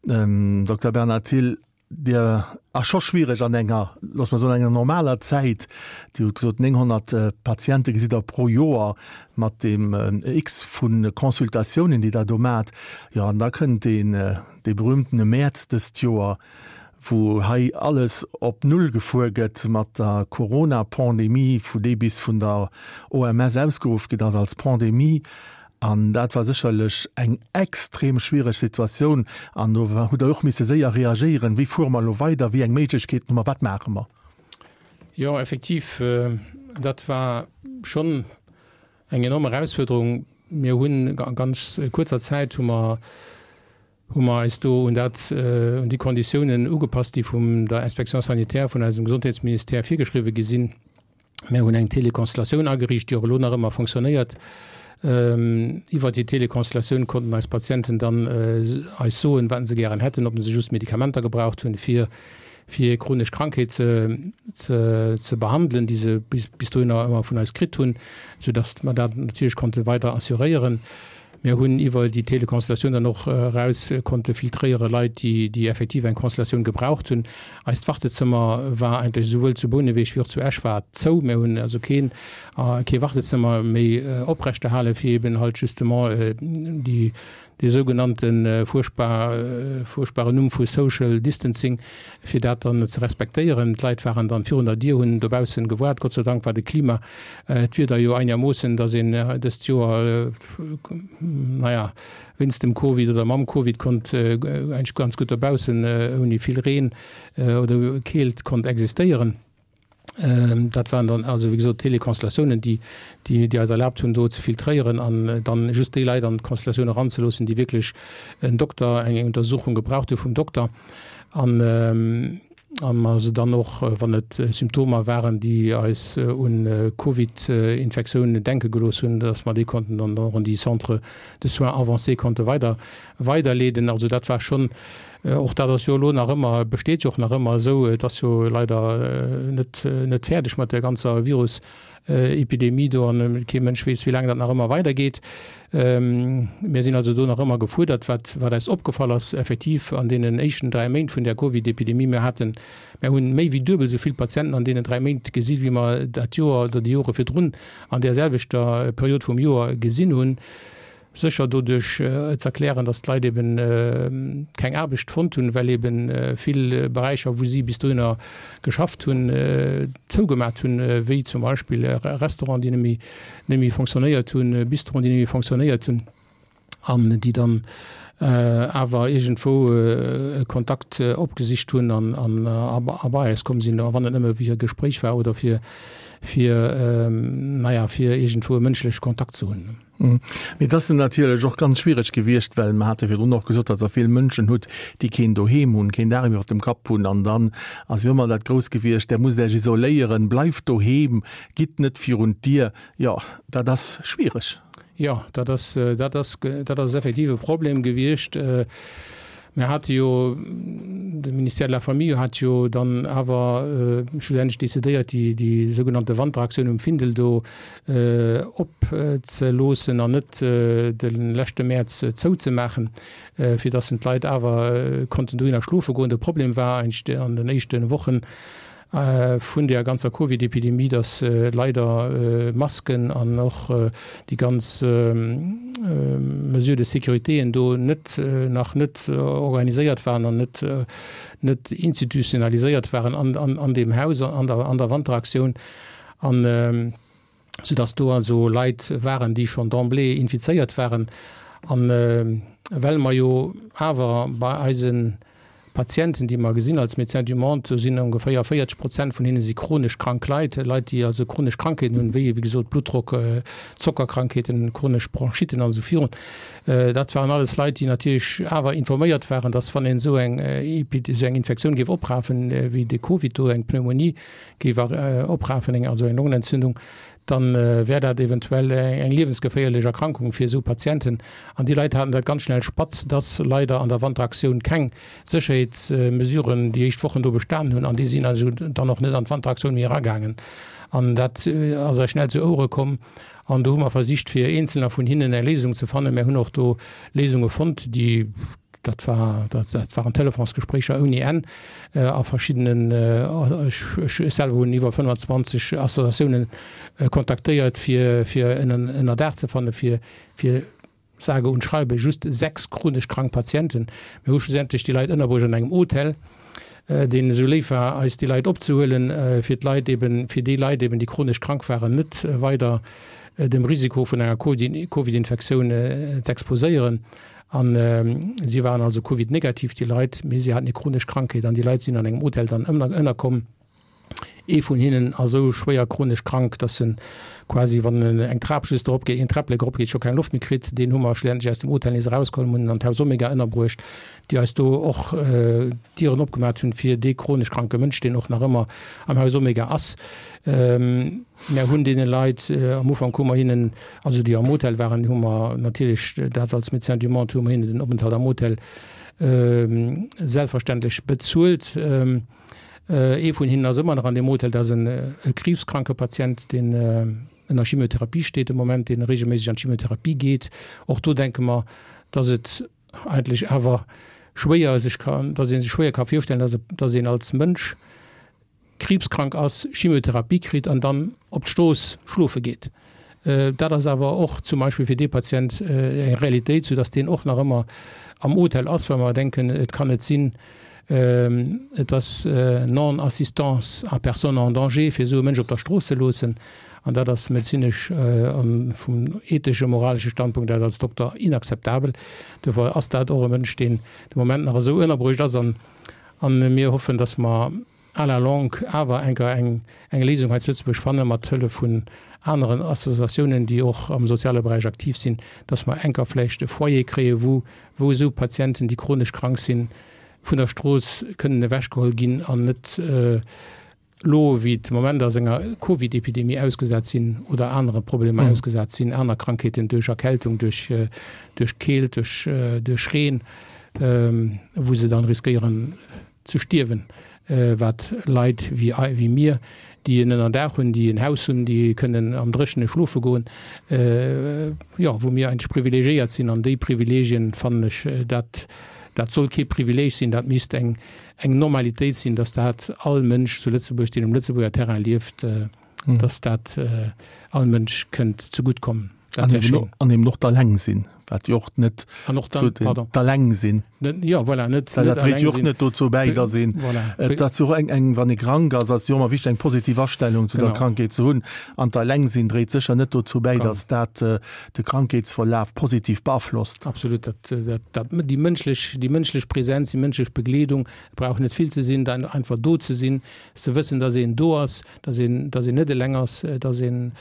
A: Dokter Bernard Thill, Dir ass scho schwiereg an enger, loosse mer soen, enger normaler Zäit. Dir hutt gesot, 900 Patiente gesitt Der pro Joer mat deem X vu Consultatiounen, déi Der do maacht. Jo, an da kënnt deen, dee berühmtene Mäerz dëst Joer, wou hei alles op Null gefuer gëtt mat der Corona-Pandemie, wou déi bis vun der OMS ausgeruff ginn ass als Pandemie. An dat war sécherlech eng extrem schwiereg Situatioun. An do hutt Der och misse séier reagéieren. Wéi fuere mer elo weider? Wéi eng Méiglechkeeten hu mer? Wat maache mer?
B: Jo, effektiv, dat war schonn eng enorm Erausfuerderung. Mir hunn a ganz kuerzer Zäit hu mer hu mer eis do un dat, un déi Konditiounen ugepasst, déi vum der Inspection sanitaire vun eisem Gesondheetsministère virgeschriwwen gi sinn. Mir hunn eng Teleconstellatioun ageriicht, déi och elo nach ëmmer fonctionnéiert. Iwwert déi Teleconstellatioun konnten eis Patienten dann eis soen, wat se gären hätten, ob se just Medikamenter gebraucht hunn, fir fir hir chronesch Krankheet ze ze ze behandelen, déi se bis bis dohinner ëmmer vun eis kritt hunn, soudass mer dat natierlech konnte weider assuréieren. Mir hunn iwwer déi Teleconsultatioun dann och eraus konnte filtréiere Leit, déi, déi effektiv eng Consultatioun gebraucht hunn. Eist Wartezëmmer war eigentlech esouwuel zu Bouneweg wéi och zu Esch war zou. Mir hunn also keen, kee Wartezëmmer méi oprechterhalen, fir eben halt justement déi, dee sougenannte fuerchtbar, fuerchtbaren Numm vu Social Distancing, fir dat dann ze respektéieren. D'Leit waren dann virun der Dier, hunn dobaussen gewaart. Gott sei Dank war de Klima, d'Wieder jo einermoossen, dass een dëst Joer, naja, wéinst dem Covid oder mam Covid konnt eigentlech ganz gutt dobaussen ouni vill Reen oder Keelt konnt existéieren. Dat waren dann also, wéi gesot, Teleconstellatiounen, déi, déi eis erlaabt hunn, do ze filtréieren an dann just déi Leit an d'Constellatioun eranzeloossen, déi wierklech en Dokter, eng Untersuchung gebraucht hu vum Dokter. An a mer se dann och, wann et Symptomer waren, déi eis un Covid-Infektioun denke gelooss hunn, dass mer déi konnten dann och an déi Centres de soins avancés konnte weider weiderleeden. Also dat war schonn, och dat ass jo elo nach ëmmer, besteet jo och nach ëmmer esou, et ass jo leider net net fäerdeg mat där ganzer Virus Epidemie do an kee Mënsch weess, wéi laang dat nach ëmmer weidergeet. Mir sinn also do nach ëmmer gefuerdert. Wat, wat eis opgefall ass effektiv an deenen éischten 3 Méint vun där Covid-Epidemie, mir haten, mir hunn méi wéi duebel esou vill Patienten an deenen 3 Méint gesi wéi mer dat Joer oder déi Jore virdrun an där selwechter Period vum Joer gesinn hunn. Sécher doduerch ze erklären, datt d'Leit eben keng Aarbecht fonnt hunn, well eben vill Beräicher, wou si bis dohinner geschafft hunn, zougemat hunn, wéi zum Beispill Restauranten, déi net méi, net méi fonctionnéiert hunn, Bistroen, déi net méi fonctionnéiert hunn an déi dann awer iergendwou e Kontakt opgesicht hunn an a bei eis komm sinn, a wann et nëmme fir e Gespréich war oder fir, fir, naja, fir iergendwou e mënschleche Kontakt ze hunn.
A: Mee et ass natierlech och ganz schwiereg gewiescht, well mer hate virdrun och gesot, datt Der vill Mënschen hutt, déi keen Doheem hunn, keen Daach iwwer dem Kapp hunn. An dann ass jo ëmmer dat Grousst gewiescht, Der musst Iech isoléieren, bleift doheem, gitt net virun d'Dier. Jo, dat ass schwiereg.
B: Jo, dat ass, dat ass, dat ass effektiv e Problem gewiescht. Mir hate jo, de Ministère de la Famille hat jo dann awer schlussendlech decidéiert, déi, déi sougenannte Wanteraktioun um Findel do opzeloossen an net de leschte Mäerz zouzemaachen, fir dass d'Leit awer konnten dohinner schlofe goen. De Problem war eigentlech an den éischte Wochen, vun der ganzer Covid-Epidemie, dass leider Masken an och déi ganz Mesures de sécuritéen do net, nach net organiséiert waren an net, net institutionaliséiert waren an deem Haus, an der, an der Wanteraktioun. An soudass do also Leit waren, déi schonn d'emblée infizéiert waren. An well mer jo awer bei eise Patienten, déi mer gesinn als Médecins du Monde, do sinn ongeféier 40 Prozent vun hinne si chronesch krank Leit, Leit, déi also chronesch Krankheeten hunn, wéi, wéi gesot, Bluttdrock, Zockerkrankheeten, chronesch Bronchitten an esou virun. Dat waren alles Leit, déi natierlech awer informéiert waren, dass wann een esou eng esou eng Infektioun géif oprafen, wéi de Covid do, eng Pneumonie géif oprafen, eng also eng Longenentzündung, dann wär dat eventuell eng liewensgeféierlech Erkrankung fir esou Patienten. An déi Leit haten dat ganz schnell spatz, dass leider an der Wanteraktioun keng Sécherheetsmesuren déi éischt Wochen do bestanen hunn. An déi sinn also dann och net an d'Wanteraktioun méi eragaangen. An dat ass eis schnell zu Ouere komm. An do hu mer versicht, fir eenzelner vun hinnen eng Léisung ze fannen. Mär hunn och do Léisunge fonnt, déi Dat war, dat, dat waren Telefonsgespréicher ouni Enn a verschiddenen, ech, ech selwer hunn iwwer 25 Associatiounen kontaktéiert, fir, fir en Ënnerdaach ze fannen, fir, fir sage und schreibe just 6 chronesch krank Patienten. Mir hu schlussendlech déi Leit ënnerbruecht an engem Hotel, deen esou léif war, eis déi Leit opzehuelen, fir d'Leit eben, fir déi Leit eben, déi chronesch krank waren, net weider dem Risiko vun enger Covid-Infektioun z'exposéieren. An si waren also Covid-negativ, déi Leit, mee si haten eng chronesch Krankheet. An déi Leit sinn an engem Hotel dann ënnerkomm. Ee vun hinnen ass esou schwéier chronesch krank, dass en quasi, wann en eng Trap just erop geet, een Träpplek erop geet, scho keng Loft méi kritt. Deen hu mer schlussendlech aus dem Hotel nees erausgeholl, hunn en an d'Haus Omega ënnerbruecht, déi eis do och d'Dieren opgemaach hunn fir dee chronesch kranke Mënsch, deen och nach ëmmer am Haus Omega ass. Mär hunn deene Leit, am Ufank hu mer hinnen, also déi am Hotel waren, hu mer natierlech dat als Médecins du Monde, hu mer hinnen den Openthalt am Hotel selbstverständlech bezuelt. Ee vun hinnen ass ëmmer nach an deem Hotel, dat ass e kriibskranke Patient, deen ënner Chimiotherapie steet de Moment, dee regelméisseg an d'Chimiotherapie geet. Och do denke mer, dass et eigentlech awer schwéier sech kann, dass ee sech schwéier ka virstellen, dass, dass een als Mënsch kriibskrank ass, Chimiotherapie kritt an dann op d'Strooss schlofe geet. Dat ass awer och zum Beispill fir dee Patient eng Realitéit, soudass deen och nach ëmmer am Hotel ass, well mer denken, et kann net sinn, et ass Non-assistance à personne en danger, fir esou e Mënsch op der Strooss ze loossen. An dat ass medezinesch a vum ethesche, moralesche Standpunkt aus als Dokter inakzeptabel. Dofir ass dat och e Mënsch, deen de Moment nach esou ënnerbruecht ass. An mir hoffen, dass mer à la longue awer enker eng Léisung hei zu Lëtzebuerg fanne mat Hëllef vun aneren Associatiounen, déi och am soziale Beräich aktiv sinn, dass mer enker vläicht e Foyer kréie wou wou esou Patienten, déi chronesch krank sinn, vun der Strooss kënnen ewechgeholl ginn an net elo wéi et de Moment ass enger Covid-Epidemie ausgesat sinn oder anere Problemer ausgesat sinn, aner Krankheeten duerch Erkältung, duerch duerch Keelt, duerch duerch Reen, wou se dann riskéieren ze stierwen, wat Leit wéi wéi mir, déi en Ënnerdaach hunn, déi en Haus hunn, déi kënnen am Dréchene schlofe goen, jo, wou mir eigentlech privilegiéiert sinn. An déi Privilegien, fannen ech, dat dat soll kee Privileg sinn, dat misst eng eng Normalitéit sinn, dass dat all Mënsch zu Lëtzebuerg, deen um Lëtzebuerger Terrain lieft, dass dat all Mënsch kënnt zegutt kommen.
A: Dat wär schéin. An eben och d'Alleng sinn, wat jo och net
B: An och dann,
A: pardon. D'Alleng sinn.
B: Jo, voilà,
A: net, net Dat dréit jo och net dozou bäi, datt een, voilà. Et ass jo och eng, eng, wann ee krank ass, ass jo ëmmer wichteg, eng positiv Astellung zu der Krankheet ze hunn. An d'Alleng sinn dréit sécher net dozou bäi, datt dat de Krankheetsverlaf positiv beaflosst.
B: Absolut. Dat, dat, dat, déi mënschlech, déi mënschlech Präsenz, déi mënschlech Begleedung, et brauch net vill ze sinn, dann einfach do ze sinn, ze wëssen, datt een do ass, datt een, datt een net eleng ass, datt een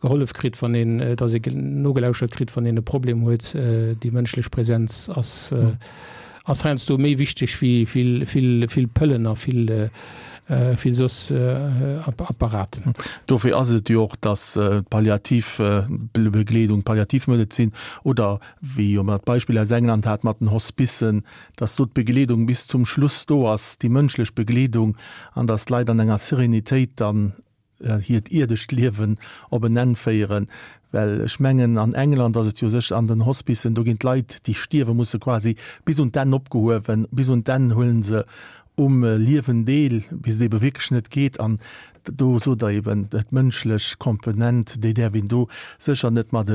B: gehollef kritt, wann een, datt ee nogelauschert kritt, wann een e Problem huet. Déi mënschlech Präsenz ass, ass heiansdo méi wichteg wéi vill, vill, vill Pëllen a vill, vill soss Apparaten.
A: Dofir ass et jo och, datt d'Palliativbegleedung, d'Palliativmedezin oder wéi jo mer d'Beispill aus England hat mat den Hospicen, datt do d'Begleedung bis zum Schluss do ass, déi mënschlech Begleedung, an datt d'Leit an enger Serenitéit dann hiert ierdescht Liewen op en Enn féieren, well ech mengen an England ass et jo sech an den Hospicen, do ginn d'Leit déi stierwe musse quasi bis un d'Enn opgehuewen, bis un d'Enn huelen se um Liewen deel, bis et ebe wierklech net geet an do sot Der eben, d'mënschlech Komponent, déi däerf een do sécher net mat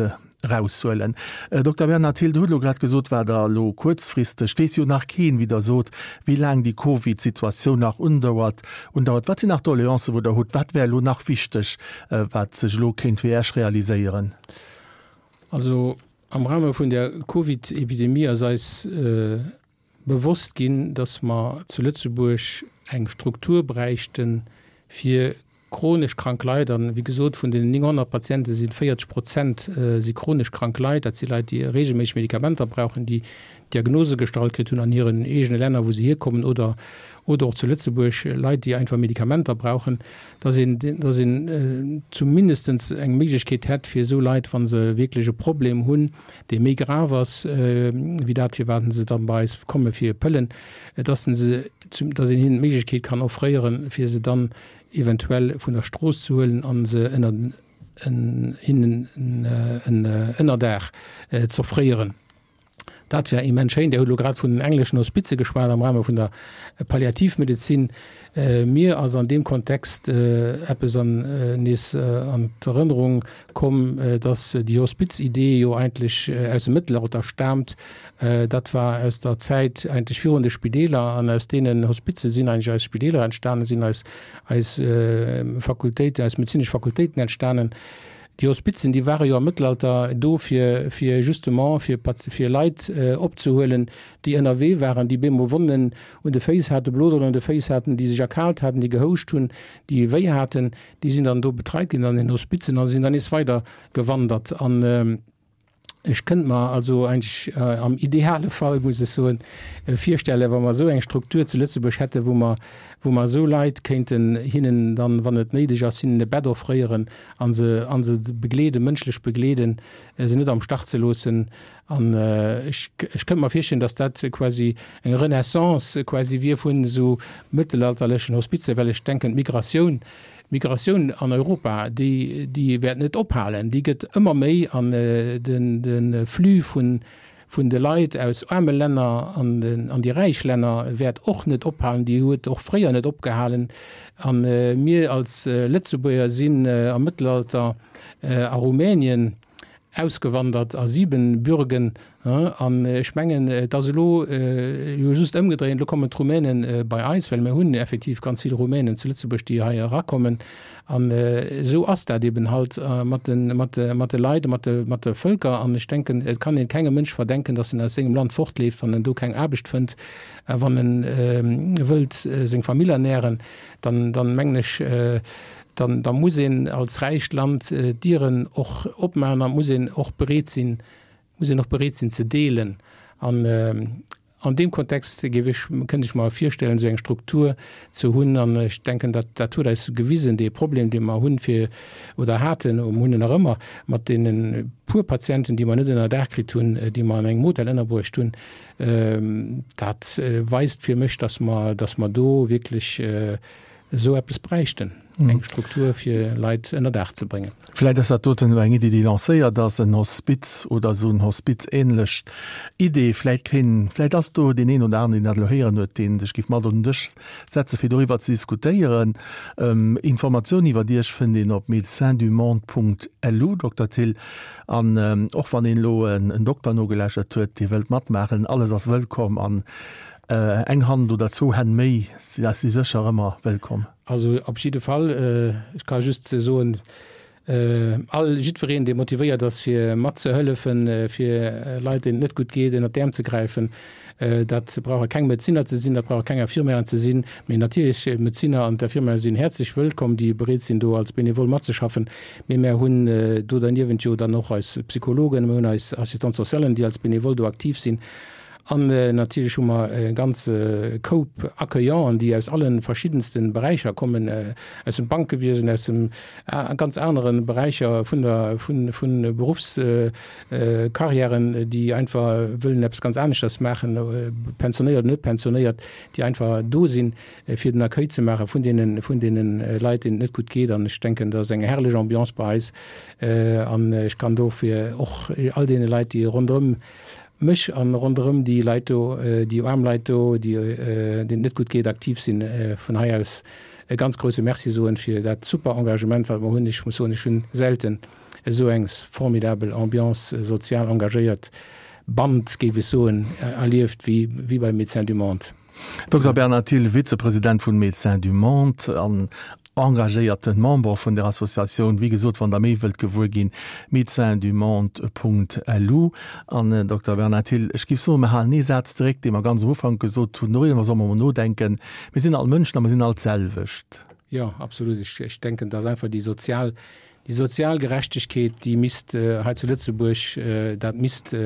A: eraushuelen. Dokter Bernhard Thill, Der hutt elo grad gesot, wat Der elo kuerzfristeg, et weess jo nach keen, wéi Der sot, wéi laang déi Covid-Situatioun nach undauert, undauert. Wat sinn nach Doleancen, wou Der hutt? Wat wär elo nach wichteg, wat sech elo kéint fir Iech realiséieren?
B: Also am Rahme vun der Covid-Epidemie ass eis bewosst ginn, dass mer zu Lëtzebuerg eng Struktur bräichten, fir chronesch krank Leit, an wéi gesot, vun den 900 Patiente si 40 Prozent si chronesch krank Leit, dat si Leit, déi reegelméisseg Medikamenter brauchen, déi Diagnose gestallt kritt hunn an hiren eegene Länner, wou se hierkommen, oder oder och zu Lëtzebuerg, Leit, déi einfach Medikamenter brauchen, dass een, dass een zumindestens eng Méiglechkeet hätt, fir esou Leit, wa se wierklech e Problem hunn, dee méi grav ass wéi dat, firwat se dann bei eis komme fir Pëllen, dass se, dass een hinnen d'Méiglechkeet kann offréieren, fir se dann eventuell vun der Strooss ze huelen a se ënner hinnen en Ënnerdaach z'offréieren. Dat wär immens schéin. Dir hutt elo grad vun den engleschen Hospize geschwat am Rahme vun der Palliativmedezin. Mir ass an deem Kontext eppes an nees an d'Erënnerung komm, dass déi Hospizidee jo eigentlech aus dem Mëttelalter staamt. Dat war aus der Zäit eigentlech virun de Spideeler an aus deenen Hospize sinn eigentlech eis Spideeler entstanen, sinn eis eis Fakultéiten, eis medezinesch Fakultéiten entstanen. Déi Hospizen, déi ware jo am Mëttelalter do fir fir justement fir fir Leit opzehuelen, déi ënnerwee waren, déi bemol Wonnen un de Féiss haten, Bloderen un de Féiss haten, déi sech erkaalt haten, déi gehouscht hunn, déi wéi haten. Déi sinn dann do betreit ginn an den Hospizen a sinn dann nees weider gewandert. An ech kënnt mer also eigentlech am ideale Fall, muss ech soen, virstellen, wa mer esou eng Struktur zu Lëtzebuerg hätten, wou mer, wou mer esou Leit kéinten hinnen dann, wann et néideg ass, hinnen e Bett offréieren a se, a se begleeden, mënschlech begleeden, se net am Stach ze loossen. An ech, ech kënnt mer virstellen, dass dat quasi eng Renaissance quasi wier vun esou mëttelalterlechen Hospizer, well ech denken, d'Migratioun, d'Migratioun an Europa, déi, déi wäert net ophalen, déi gëtt ëmmer méi an den, de Flux vun, vun de Leit aus aarme Länner an den, an déi räich Länner wäert och net ophalen, déi huet och fréier net opgehalen. A mir als Lëtzebuerger sinn am Mëttelalter a Rumänien, ausgewandert a Siebenbürgen, an ech mengen, et ass elo jo just ëmgedréint, elo kommen d'Rumänen bei eis, well mir hunn effektiv ganz vill Rumänen zu Lëtzebuerg, déi hei erakommen. An esou ass dat eben halt mat de, mat de, mat de Leit, mat de, mat de Vëlker. An ech denken, et kann een kengem Mënsch verdenken, datt en aus sengem Land fortleeft, wann en do keng Aarbecht fënnt, a wann en wëllt seng Famill ernähren, dann, dann mengen ech, dann da muss een als räicht Land d'Dieren och opmaachen an muss een och bereet sinn, muss een och bereet sinn ze deelen. An an deem Kontext géif ech, kënnt ech mer virstellen, esou eng Struktur ze hunn. An ech denken, dat dat huet eis gewisen, dee Problem, dee mer hunn, fir oder haten, mer hunn en nach ëmmer, mat deene puer Patienten, déi mer net ënnerdaach kritt hunn, déi mer an engem Hotel ënnerbruecht hunn, dat weist fir mech, dass mer, dass mer do wierklech. Esou eppes bräichten, eng Struktur fir Leit ënner Daach ze bréngen.
A: Vläit ass dat doten elo eng Iddi, déi lancéiert ass, en Hospiz oder esou en Hospiz-ähnlech Idee. Vläit keen, vläit ass do deen een oder aneren, deen dat elo héieren huet, dee sech géif mat un den Dësch setze fir doriwwer ze diskutéieren. Informatiounen iwwert Iech fënnt een op médecinsdumonde.lu, Dokter Thill. An och wann een elo en Dokter nogelauschtert huet, dee wëllt matmaachen, alles ass wëllkomm an eng Hand oder zwou Hänn méi si sécher ëmmer wëllkomm.
B: Also op jidde Fall, ech ka just soen, all, jiddwereen, dee motivéiert ass fir matzehëllefen, fir Leit, deenen et net gutt geet, ënnert d'Äerm ze gräifen, dat brauche keng Medezinner ze sinn, dat brauche keng Infirmièren ze sinn, mee natierlech d'Medezinner an d'Infirmièren sinn häerzlech wëllkomm, déi bereet sinn do als Benevole matzeschaffen. Mee mär hunn do derniewent jo dann och eis Psychologen, mir hunn eis Assistante socialen, déi als Benevole do aktiv sinn. An natierlech hu mer e ganze Koup Accueillanten, déi aus alle verschiddenste Beräicher kommen, aus dem Bankewiesen, aus dem ganz anere Beräicher vun der, vun, vun Beruffskarriären, déi einfach wëllen eppes ganz aneschters maachen, pensionéiert oder net pensionéiert, déi einfach do sinn, fir den Accueil ze maache vun deene, vun deene Leit, deenen et net gutt geet. An ech denken, dat ass eng herrlech Ambiance bei eis. An ech kann dofir och all deene Leit, déi ronderëm mech an ronderëm déi Leit do, déi aarm Leit do, déi, deenen et net gutt geet, aktiv sinn, vun hei aus e ganz grouse Merci soen fir dat super Engagement, wat mer hunn. Ech muss soen, ech hunn selten esou eng formidabel Ambiance, sozial engagéiert Band, géif ech soen, erlieft wéi, wéi bei Médecins du Monde.
A: Dokter Bernard Thill, Vizepresident vun Médecins du Monde an engagéierten Member vun der Associatioun. Wéi gesot, wann der méi wëllt gewuer ginn, médecinsdumonde.lu. An Dokter Bernard Thill, ech géif soen, mir halen ee Saz zeréck, dee mer ganz am Ufank gesot hunn, doriwwer solle mer mol nodenken, Mir sinn all Mënschen a mir sinn all d'selwecht.
B: Jo, absolut. Ech denken, dass einfach déi sozial, déi sozial Gerechtegkeet, déi misst hei zu Lëtzebuerg, dat misst,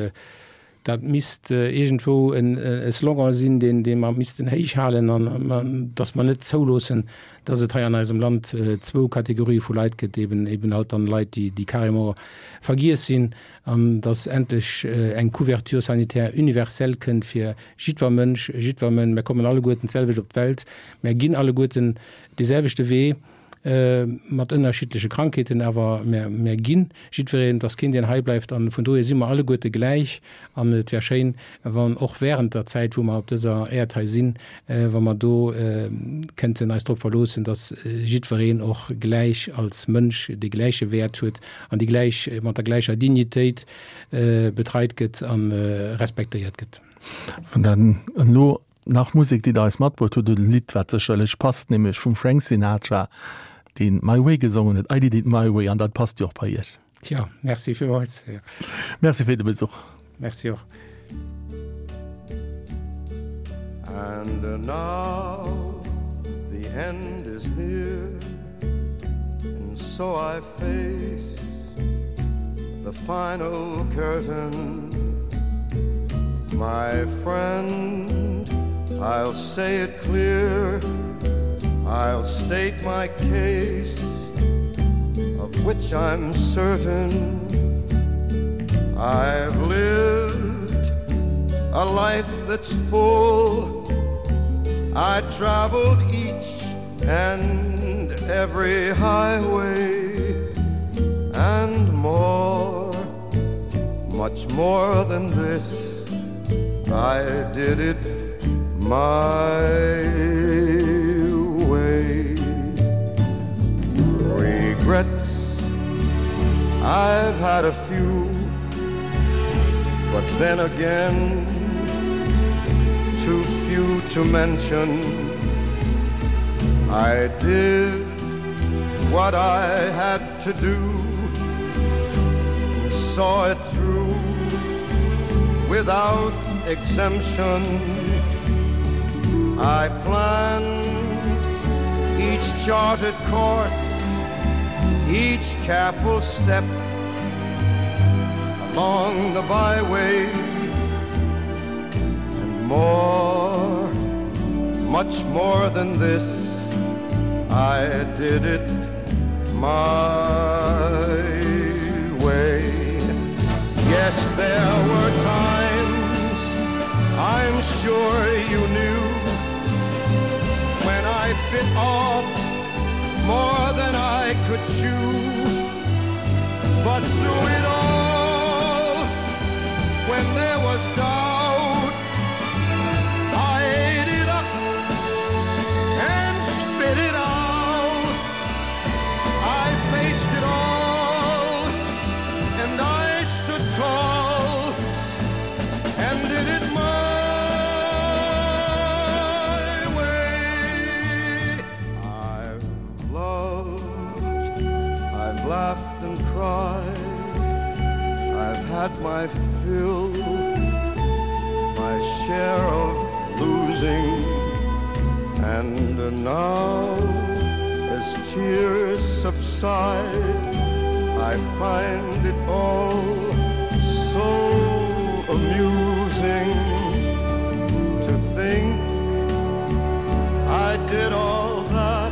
B: Dat misst iergendwou e Slogan sinn, deen dee mer missten héich halen an datt mer net zouloossen, datt et hei an eisem Land zwou Kategorië vu Leit gëtt, eben eben halt dann Leit, déi déi carrément vergiess sinn, an datt endlech eng Couverture sanitaire universelle kënnt fir jiddwer Mënsch, jiddwer Mën. Mer kommen alleguerten d'selwecht op d'Welt, mer ginn alleguerten dee selwechte Wee. mat ënnerschiddleche Krankheeten, awer mär ginn jiddwereen, et ass keen deen hei bleift an vun dohier si mer alleguerte gläich an et wär schéin wann och während der Zäit wou mer op dëser Äerd hei sinn, wa mer do kënnten eis drop verloossen, datt jiddwereen och gläich als Mënsch dee gläiche Wäert huet an déi gläich, mat der gläicher Dignitéit betreit gëtt a respektéiert gëtt.
A: Wann dann elo Nach Musek, déi Der eis matbruecht hutt, oder e Lidd, wat sécherlech passt, nämlech vum Frank Sinatra, deen My Way gesongen huet, I did it my way, an dat passt jo och bei Iech.
B: Tjo, merci villmools.
A: Merci fir de Besuch.
B: Merci och.
C: And now the end is near And so I face the final curtain My friend, I'll say it clear I'll state my case Of which I'm certain I've lived a life that's full I traveled each and every highway and more much more than this I did it my way regrets I've had a few but then again too few to mention I did what I had to do and saw it through without exemption I planned each charted course each careful step along the byway and more much more than this I did it my way yes there were times I'm sure you knew when I bit off. But through it all, when there was doubt, I ate it up and spit it out. I faced it all and I stood tall and did it my way. I've loved, I've laughed and cried, I've had my fill, my share of losing, and now as tears subside, I find it all so amusing to think I did all that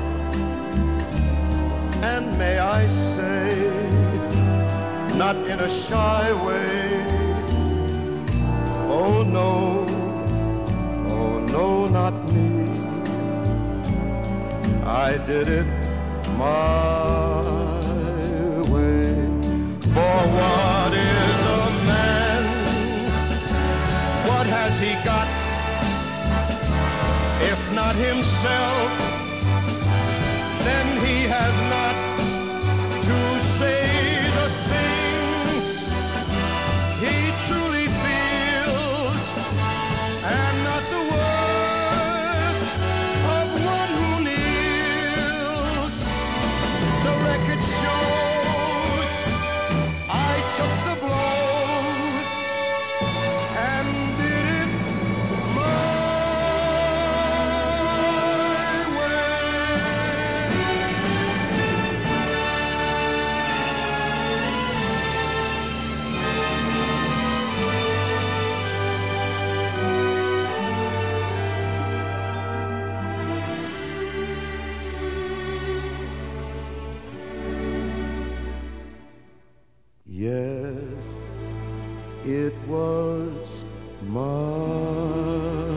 C: and may I say not in a shy way oh no oh no not me I did it my way for what is a man what has he got if not himself then he has not to say the things he truly feels and not the words of one who kneels the record shows I took the blows and did it my way. Yes, it was my.